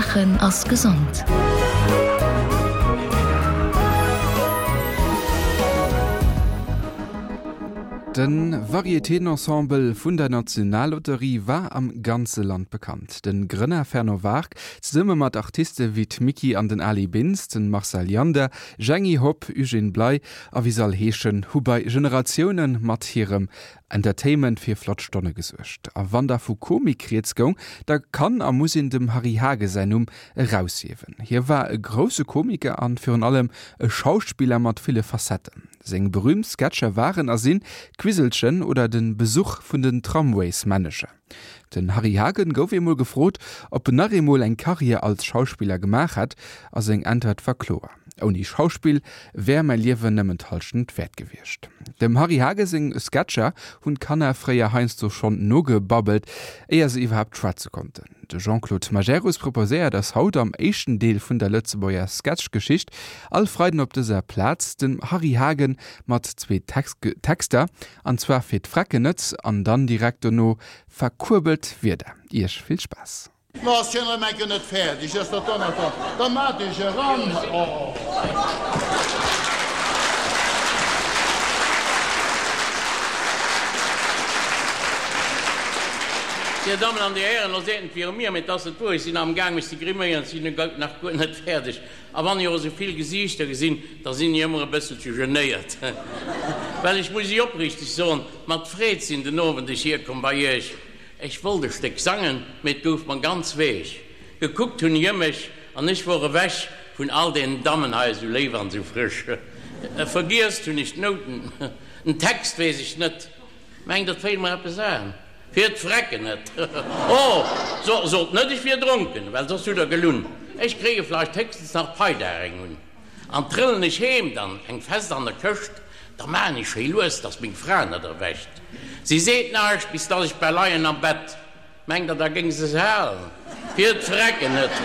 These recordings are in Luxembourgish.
Laachen ass gesond. De Varietéen-Ensemble vun der Nationallotterie war am ganze Land bekannt. De Grënner Fernand Wark, zesumme mat Artiste wéi d'Micky an den Ali Bintz, de Marcel Jander, Jeanny Hopp, Eugène Bley a wéi se all heeschen, hu bei Generatioune mat hirem Entertainment fir flott Stonne gesuergt. A wann da vu Komik rieds goung, da kann a muss een dem Harry Hage säin Numm eraushiewen. Hie war e grousse Komiker an virun allem e Schauspiller mat ville Facetten. Seng berüümt Sketcher waren a sinn D'Quiselchen oder de Besuch vun den Tramwaysmännecher. Den Harry Hagen gouf eemol gefrot, ob en nach eemol eng Karriär als Schauspiller gemaach hätt, a seng Äntwert war kloer, Ouni Schauspill wär mäi Liewen nëmmen d'Hallschent wäert gewiescht. Dem Harry Hagen seng Sketcher hunn d'Kanner fréier heiansdo schonn nogebabbelt, éier se iwwerhaapt schwätze konnten. De Jean-Claude Majerus proposéiert eis haut am éischten Deel vun der Lëtzebuerger Sketchgeschicht, all Freiden op dëser Plaz, den Harry Hagen mat zwee Texter, an zwar fir d'Vrecken net an dann direkt dono verkuerbelt Wierder. Iech vill Spaass! No ass hien erëm enke net fäerdeg, ass dat Donnerter, da mat ech eran. Oh. Dir Dammen an Dir Hären, lo seet en viru mir, mee 't ass net wuer, ech sinn amgaang mech ze griméieren, ech sinn nach guer net fäerdeg. A wann ech och esou vill Gesiichter gesinn, da sinn ech ëmmer e bësselche genéiert, well ech muss Iech opriichteg soen, mat Freed sinn den Owend ech hierkomm bei Iech. Ech wollt e Stéck sangen, mee 't gouf mer ganz weech. Gekuckt hunn ech ëm mech, an ech wor ewech vun all deenen Dammen hei, esou léif an esou frësch. Vergiesst hunn ech d'Nouten, den Text weess ech net, mengt der 't féilt mer eppes an? Fir d'Vrecken net! Oh, sot net ech wier dronken, well soss hutt der gelunn. Ech kréie vleicht héchstens nach d'Peidag eng un. An trëllen ech heem, dann eng fest an der Këscht, da maan ech schéi lues, dass meng Fra net erwächt. Si seet naischt, bis dass ech bal leien am Bett. Mengt der, da géing se se halen? Fir d'Vrecken net!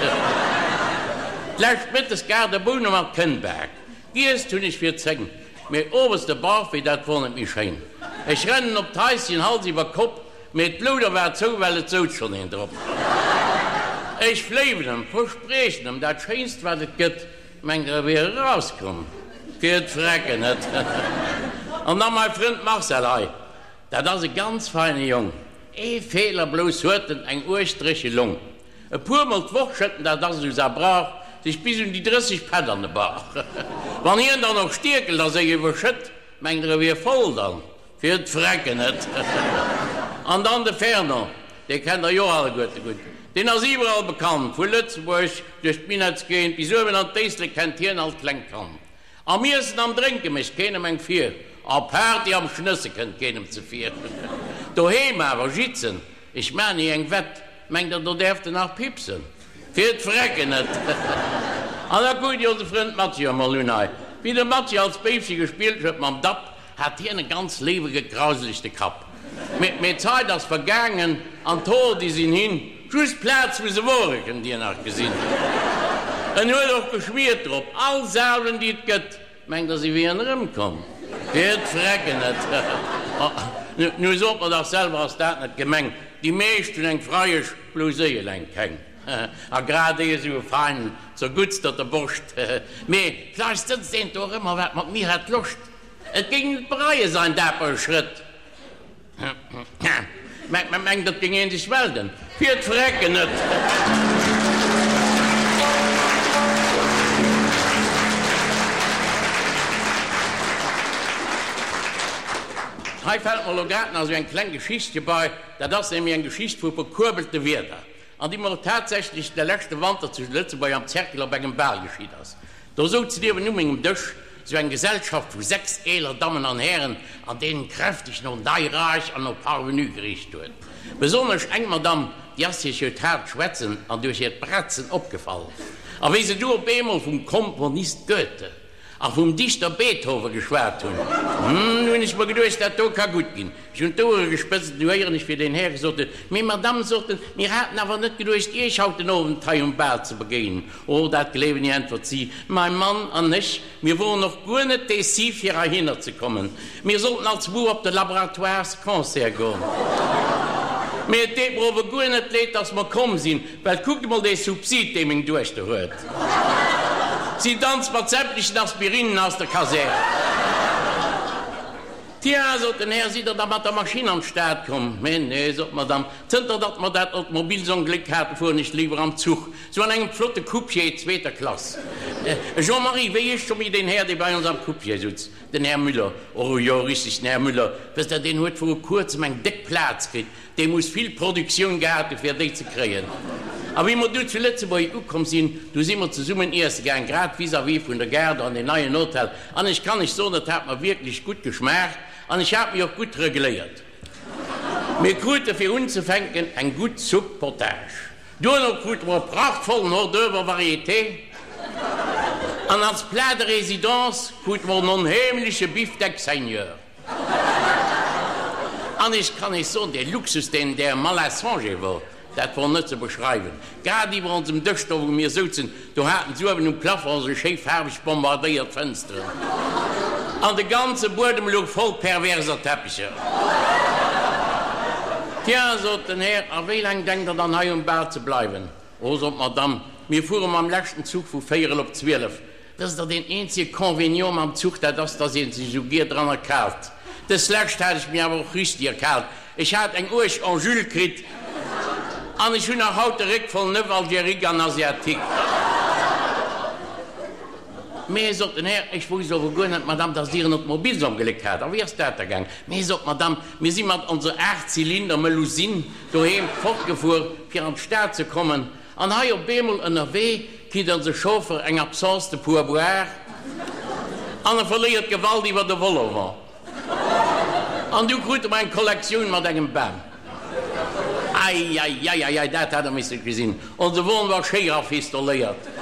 D'lescht Mëttes gar de Boune mat Kënnbak. Giesst hunn ech fir 10, mee owes de Barfee, dat wor net méi schéin. Ech rennen op d'Haischen, Hals iwwer Kopp, mee d'Louder war zou, well et souz schonn een drop. Ech fléiwen em, verspriechen em dat Schéinst wat et gëtt, mengt der e wier erauskomm? Fir d'Vrecken net! An da mei Frënd Marcel hei, dat ass e ganz feine Jong, ee Feeler blouss huet en, eng uerg dréche Long. E puer mol d'Woch schëtt en, dat ass esou sa Brauch, sech bis un déi 30 Pätt an de Bauch. Wann hien dann och stierkelt a sech iwwerschëtt, mengt der e wier voll dann, fir d'Vrecken net. An dann de Fernand, dee kennt der jo alleguerte gutt, deen ass iwwerall bekannt, vu Lëtzebuerg duerch d'Minettsgéigend bis uewen an d'Éislek kennt hien all klengt Kand. Am Iessen, am Drénke mécht keenem eng vir, a Party am Schnësse kënnt keenem zevir. Doheem awer jitzen, ech maan ni eng Wett, mengt der do däerft en nach pipsen? Fir d'Vrecken net! An da kuckt Dir onse Frënd Mathieu emol un hei. Wéi de Mathieu als Béifche gespillt huet mam Dapp, hat hien e ganz léiwe gekrauselegte Kapp. Mee d'Zait ass vergaangen an d'Hoer déi sinn hin. Just d'Plaz wou se wore kënnt Dir nach gesinn. En huet och geschwiert drop, all Salven déi et gëtt. Mengt der si wieren erëmkomm? Fir d'Vrecken net! Nu sot mer dach selwer, ass dat net gemeng? Déi meescht hunn eng Freiesch, blouss éi eleng keng. A grad éi esou e feinen, zerguttsterte Borscht. Mee vläicht sëtzt eent do erëm a wat mat mir hätt Loscht. Et géing net bereie sain dapere Schrëtt. Mengt et géing een sech melden? Fir d'Vrecken net! Hei fällt mer elo grad nach esou eng kleng Geschichtche bei. Dat ass nämlech eng Geschicht vu verkuerbelte Wierder, an déi mer och tatsächlech de leschte Wanter zu Lëtzebuerg am Cercle op engem Bal geschitt ass. Do souz niewen u mengem Dësch sou eng Gesellschaft vu 6 eeler Dammen an Hären, an deenen kräfteg no Neiraich an no Parvenu gericht huet. Besonnesch eng Madame, déi ass duerch hiert haart Schwätzen an duerch hiert Bratzen opgefall. A wéi se du op eemol vum Komponist Goethe a vum Dichter Beethoven geschwat hunn, hm, hunn ech mer geduecht, dat do ka gutt ginn. Ech hunn d'Ouere gespëtzt, du héieren ech, wéi deen Här gesot huet, Mee Madame, sot en, mir haten awer net geduecht, Iech haut den Owend hei um Bal ze begéinen. Oh, dat gleewen ech, äntwert si, Mai Mann an ech, mir woren och guer net déci, fir heihinner ze kommen. Mir sollten als Muer op de Laboratoires-Concert goen. Mee et deet mer ower guer net leed, dass mer komm sinn, well kuckt emol dee Subsid, dee meng Duechter huet. Si danzt mat sämtlechen Aspirinnen aus der Kasär. Tiens, sot den Här, sidd Der da mat der Maschinn an d'Stad komm? Mee nee, sot d'Madame, zënter datt mer dat Automobilsongléck haten, fueren ech léiwer am Zuch, sou an engem flotte Coupier zweeter Klass. Jean-Marie, wéi heescht scho méi deen Här, dee bei ons am Coupier sutz? Den Här Müller, Oh jo, richteg, den Här Müller. Wësst Der, deen huet vru kuerzem eng déck Plaz kritt. Dee muss vill Produktioun gehat hu fir déi ze kréien. A wéi mer du zu Lëtzebuerg ukomm sinn, du si mer zesummen iesse gaang, grad vis-à-vis vun der Gare, do an deen neien Hotel. An ech kann lech soen, et hat mer wierklech gutt geschmaacht an ech hat mech och gutt regléiert. Mir krute fir unzefänken eng gutt Soupe Potage. Duerno krute mer e prachtvollen Hors d'oeuvre Varieté an als Plat de résidence krute mer en onheemleche Bifdeck Seigneur. An ech kann Iech soen, dee Luxus, deen där Malassonger wor, dat wor net ze beschreiwen. Grad iwwer onsem Dësch, do wou mir souzen, do haten s'uewen um Plafond esou schéi faarweg bombardéiert Fënsteren. An de ganze Buedem louch voll perverser Teppicher. Tiens, sot den Här, a wéi laang denkt Der dann hei um Bal ze bleiwen? Oh, sot d'Madame, mir fuere mam leschten Zuch vu véierel op 12. Dëst ass deen eenzege Convenient mam Zuch, dat ass, dass ee sech esou gier dran erkaalt. Dës lescht hat ech mir awer och richteg erkaalt. Ech hat eng uerg Angule kritt an ech hunn nach haut de Réck voll Neuf-Algérique an Asiatique. Mee, sot den Här, ech wousst ower guer net, Madame, dass Dir en Automobilsongléck hat. A wéi ass dat da gaang? Mee, sot d'Madame, mir si mat onser Aachtzylinder-Melusine doheem fortgefuer, fir an d'Stad ze kommen. An hei op eemol ënnerwee kritt onse Chauffer eng Absence de pourboire an e verléiert d'Gewalt iwwer de Vol-au-vent. An du krute mer eng Kollektioun mat engem Bam. Eieieiei, dat hätt der misse gesinn. Onse Won war schéi rafistoléiert.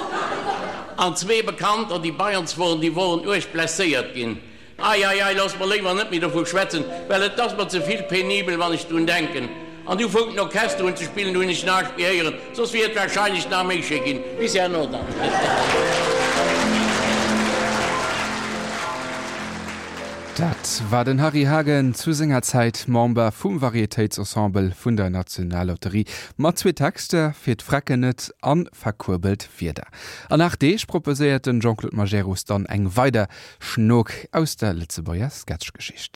An zwee Bekannter, déi bei ons woren, déi woren uerg blesséiert ginn. Ei, ei, ei, looss mer léiwer net méi dovu schwätzen, well et ass mer ze vill penibel, wann ech drun denken. An du foung den Orchester un ze spillen, du hunn ech näischt méi héieren, soss wier et wahrscheinlech nach méi schéi ginn. Bis herno dann. Dat war den Harry Hagen, zu senger Zäit Member vum Varietéitsensemble vun der Nationallotterie, mat zwee Texter, Fir d'Vrecken net an Verkuerbelt Wieder. An 8 Deeg proposéiert den Jean-Claude Majerus dann eng weider Schnook aus der Lëtzebuerger Sketchgeschicht.